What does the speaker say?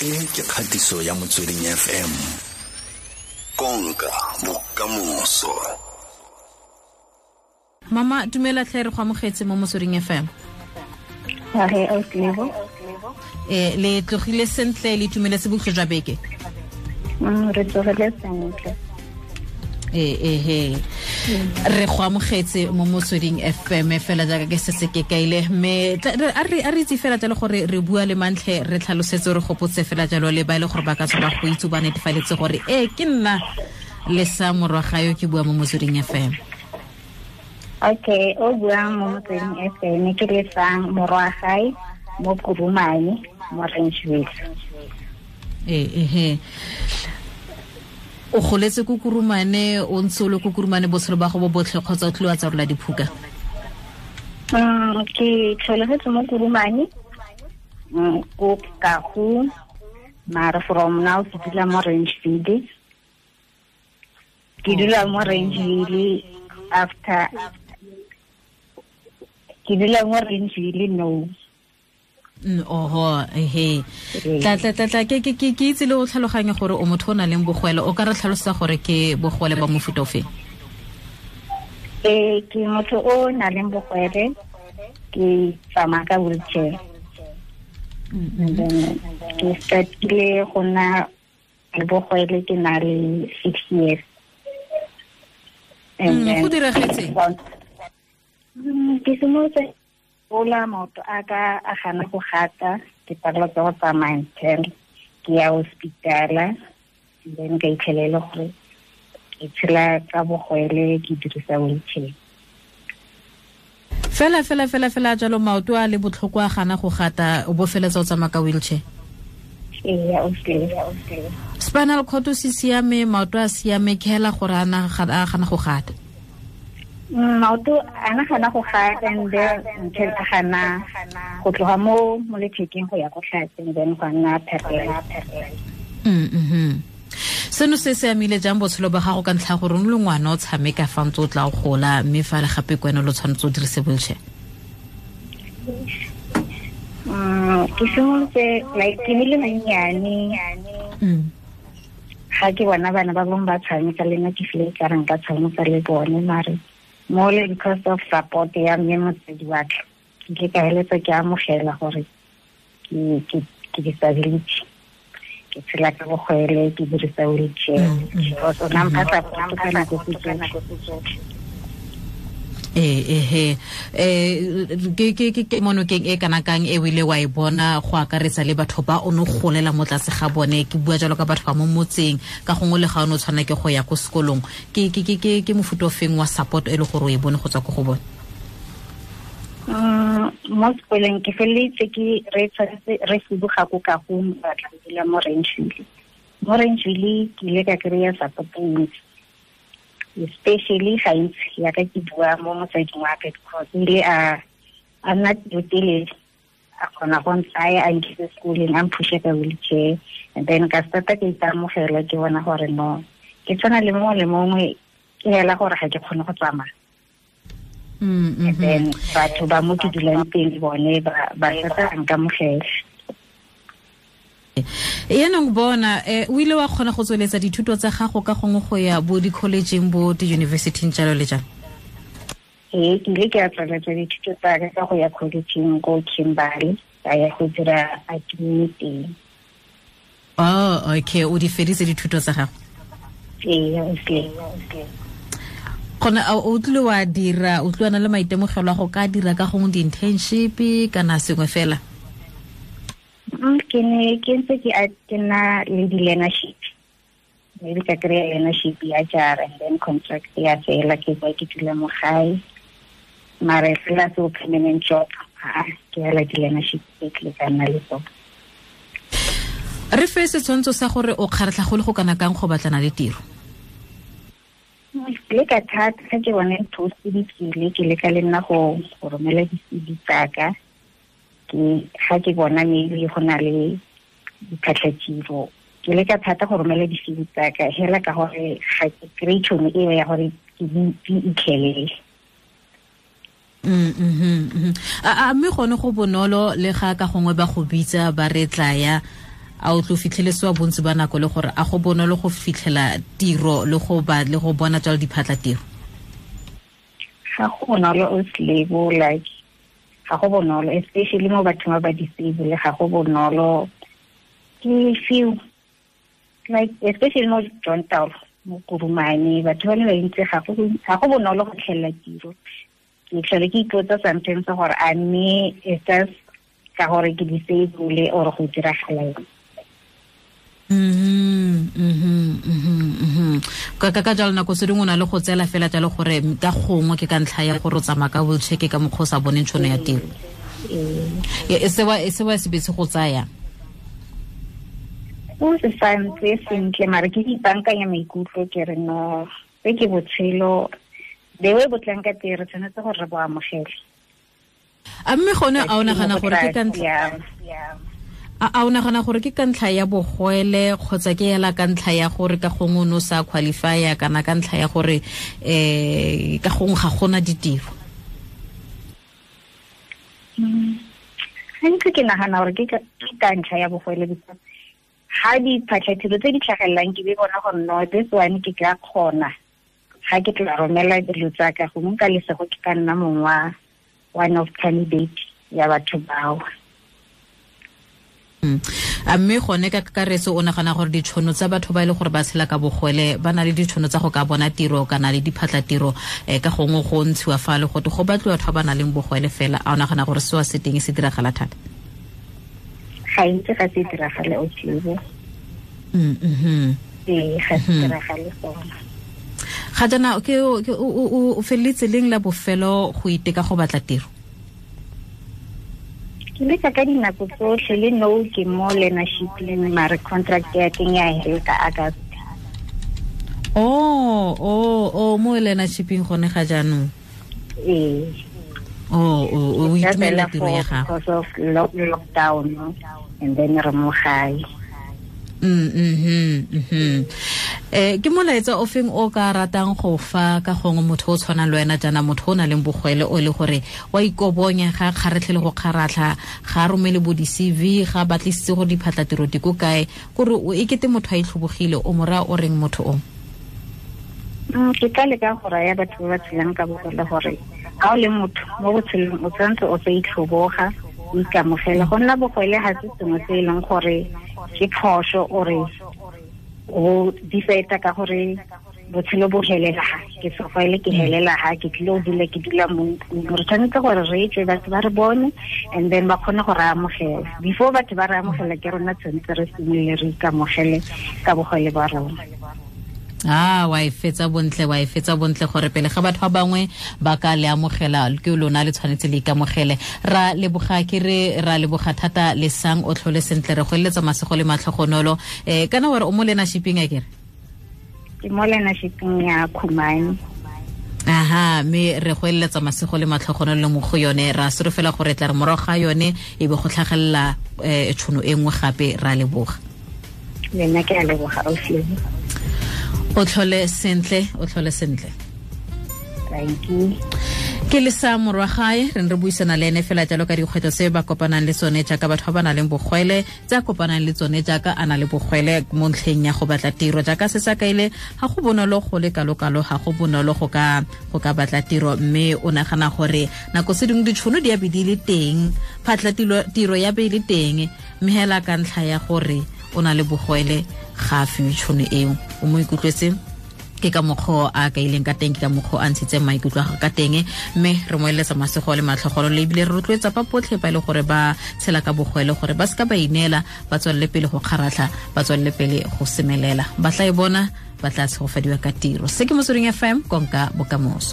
E ke kgatiso ya Motsweding FM. Konka bokamoso. Mama, dumela tlhe, re go amogetse mo Motsweding FM. Age, ausi. Le tlogile sentle, le itumeletse bokhutlo jwa beke? Re tlogile sentle. Ehe, re go amogetse mo Motsweding FM fela jaaka ke setse ke kaile, mme a re itse fela jalo gore re bua le mantlhe, re tlhalosetse, re gopotse fela jalo le ba e le gore ba ka tswa ba go itse, ba netefaletse gore ee, ke nna le sa Morwagayo ke bua mo Motsweding FM. Okay, o buang mo Motsweding FM ke Lesang Morwagae mo Kurumane mo Rangeville. Ehe, o goletse ko Kurumane, o ntse o le ko Kurumane botshelo ba go bo botlhe kgotsa o tlile wa tsarola diphuka? Ke tlholegetse mo Kurumane, ko Kagu, mara from now ke dula mo Rangeville. Ke dula mo Rangeville after ke dula mo Rangeville no. Oho, ehe. Tla tla tla tla ke ke ke ke itse le o tlhaloganye gore o motho o nang le bogwele, o ka re tlhalosa gore ke bogwele ba mofuta ofe? Ke motho o nang le bogwele, ke tsamaya ka wheelchair. And then ke startile go nna le bogwele ke na le 6 years. And then Go diragetse? Ke simolotse gola, maoto a ka a gana go gata, ke palelwa ke go tsamaya until ke ya hospitala, then ka itlhelela gore ke tshela ka bogwele, ke dirisa wheelchair. Fela fela fela fela jalo, maoto a le botlhoko a gana go gata, o bo feletsa o tsamaya ka wheelchair? Ee, okay. Spinal cord se siame, maoto a siame, ke hela gore a gana go gata? Maoto a na gana go gata, and then until a gana go tloga mo lethekeng go ya ko tlase, and then go nna paralyzed. Seno se se amile jang botshelo ba gago ka ntlha gore o le ngwana o tshameka fa ntse o tla o gola, mme fa le gape ke wena lo tshwanetse o dirise wheelchair? Ke simolotse like ke le mannyane. Ga ke bona bana ba bangwe ba tshameka le nna, ke feel ka re nka tshameka le bone, mare mo le because of support ya mme motsadi wa ka, ke ile ka heletsa ke amogela gore ke disability, ke tshela ka bogwele, ke dirisa wheelchair. Because o na mpha support ka nako tse tsotlhe. Ehe, ke monokeng e kana kang e o ile wa e bona go akaretsa le batho ba o ne golela mo tlase ga bone? Ke bua jalo ka batho ba mo motseng, ka gongwe le ga o ne o tshwana ke go ya ko sekolong, ke mofuta o feng wa support e le gore o e bone go tswa ko go bone? Mo sekolong ke feleletse ke re tshwanetse re fuduga ko Kagong, ba tla dula mo Rangeville. Mo Rangeville ke ile ka kry-a support e ntsi, especially gantsi yaka ke bua mo motsading wa ka, because o ile a nna pelotelele, a kgona go ntsaya a nkise sekoleng, a mphushe ka wheelchair, and then ka starta ke ikamogela, ke bona gore no, ke tshwana le mongwe le mongwe, ke hela gore ga ke kgone go tsamaya. And then batho ba mo ke dulang teng bone ba starta ba nkamogela. Yaanong bona, o ile wa kgona go tsweletsa dithuto tsa gago ka gongwe go ya bo di-collegeng, bo di-universityng, jalo le jalo? Ee, ke ile ke a tsweletsa dithuto tsa ka ka go ya collegeng ko Kimberley, ka ya go dira admin teng. Oh, okay, o di feditse dithuto tsa gago? Ee, okay. Gone o tlile wa dira, o tlile wa na le maitemogelo a go ka dira ka gongwe di-internship kana sengwe fela? Ke ne ke ntse ke na le di-learnership, maybe ka kry-a learnership ya jara, and then contract ya fela, ke boa ke dula mo gae, mara fela se permanent job, ha ke hela di-learnership tse ke ka nna le tsone. Re fe setshwantsho sa gore o kgaratlha go le go kana kang go batlana le tiro? Ke leka thata, ga ke bone post di tswile, ke leka le nna go romela di-C V tsaka. Ke ga ke bona maybe go na le diphatlhatiro, ke leka thata go romela di-C V tsaka, hela ka gore ga ke kry-e tšhono eo ya gore ke di itlhelele. A mme gone go bonolo le ga ka gongwe ba go bitsa ba re tlaya, A o tlo fitlhelesiwa bontsi ba nako le gore a go bonolo go fitlhela tiro le go ba le go bona jalo diphatla tiro? Ga go bonolo o slebo, like ga go bonolo, especially mo bathong ba ba disable, ga go bonolo. Ke feel like especially mo John Taolo, mo Kurumane, batho ba le bantsi ga go bonolo go tlhelela tiro. Ke tlhole ke ipotsa sometimes gore a mme it's just ka gore ke disable or go diragala eng. Ka jalo nako se dingwe o na le go tseela fela jalo gore ka gongwe ke ka ntlha ya gore o tsamaya ka wheelchair, ke ka mokgwa o sa boneng tšhono ya tiro. E sewa se betse go tsaya O se sa ntse sentle, mare ke ipankanya maikutlo ke re no, se ke botshelo, the way bo tlang ka teng re tshwanetse gore re bo amogele. A mme gone a o nagana gore ke ka ntlha a o nagana gore ke ka ntlha ya bogwele kgotsa ke ela ka ntlha ya gore ka gongwe o ne o sa qualifya, kana ka ntlha ya gore ka gongwe ga gona ditiro? Gantsi ke nagana gore ke ka ntlha ya bogwele, because ga diphatlhatiro tse di tlhagelelang ke be bona gore no, this one ke ka kgona, ga ke tla romela dilo tsa ka gongwe ka lesego ke ka nna mongwe wa one of candidate ya batho bao. A mme gone ka kakaretso o nagana gore ditšhono tsa batho ba e le gore ba tshela ka bogwele ba na le ditšhono tsa go ka bona tiro kana le diphatlatiro, ka gongwe go ntshiwa fa le gote go batliwa batho ba ba nang le bogwele fela, a o nagana gore seo se teng se diragala thata? Ga ntse ga se diragale o tlebo. Ee, ga se diragale gona. Ga jaana ke o feleletse leng la bofelo go iteka go batla tiro? Ke leka ka dinako tsotlhe, le no ke mo learnership-eng, mare contract ya teng ya hela ka August. Oh, mo learnership-eng gone ga jaanong? Ee. Oh, o itumela tiro ya gago? Because of lockdown, and then re mo gae. Ke molaetsa o feng o ka ratang go fa ka gongwe motho o tshwanang le wena jaana, motho o nang le bogwele o le gore wa ikobonya ga kgaretlhe le go kgaratlha, ga a romele bo di-CV, ga batlisitse gore diphatlatiro di ko kae, kore e kete motho a itlhobogile, o mo raya o reng motho o? Ke ka leka go raya batho ba ba tshelang ka bogole gore ga o le motho mo botshelong o tshwanetse o sa itlhoboga, o ikamogele. Go nna bogwele ga se sengwe se e leng gore ke phoso ore o difeta ka gore botshelo bo helela ha, ke sogwele ke helela ha, ke tlile o dula ke dula mo ntlong. Re tshwanetse gore re tswe batho ba re bone and then ba kgone go re amogela. Before batho ba re amogela ke rona tshwanetse re simolole re ikamogele ka bogwele ba rona. Ah, wa e fetsa bontle, wa e fetsa bontle gore pele ga batho ba bangwe ba ka le amogela ke lona le tshwanetse le ikamogele. Ra leboga ke re ra leboga thata le sang o tlhole sentle, re go eletsa masego le matlhogonolo. Kana wa re o mo learnership-eng a kere? Ke mo learnership-eng ya Khumani. Aha, mme re go eletsa masego le matlhogonolo mo go yone, ra solofela gore tla re morago ga yone e be go tlhagelela tšhono e nngwe gape. Ra leboga. Le nna ke a leboga, ausi. O tlhole sentle, o tlhole sentle. Thank you. Ke le sa morwa gae, re ne re buisana le ene fela jalo ka dikgwetlho tse ba kopanang le tsone jaaka batho ba ba nang le bogwele, tse a kopanang le tsone jaaka a na le bogwele mo ntlheng ya go batla tiro. Jaaka se sa kaile, ga go bonolo go le kalo-kalo, ga go bonolo go ka batla tiro, mme o nagana gore nako se dingwe ditšhono di a be di le teng, phatla tiro ya be e le teng, mme hela ka ntlha ya gore o na le bogwele ga a fiwe tšhono eo. O mo ikutlwetse ke ka mokgwa a kaileng ka teng, ke ka mokgwa a ntshitseng maikutlo a gagwe ka teng, mme re mo eletsa masego le matlhogolo, le ebile re rotloetsa ba botlhe ba e le gore ba tshela ka bogwele gore ba seka ba ineela, ba tswelele pele go kgaratlha, ba tswelele pele go semelela, ba tla e bona, ba tla tshegofadiwa ka tiro. Se ke Motsweding FM, konka bokamoso.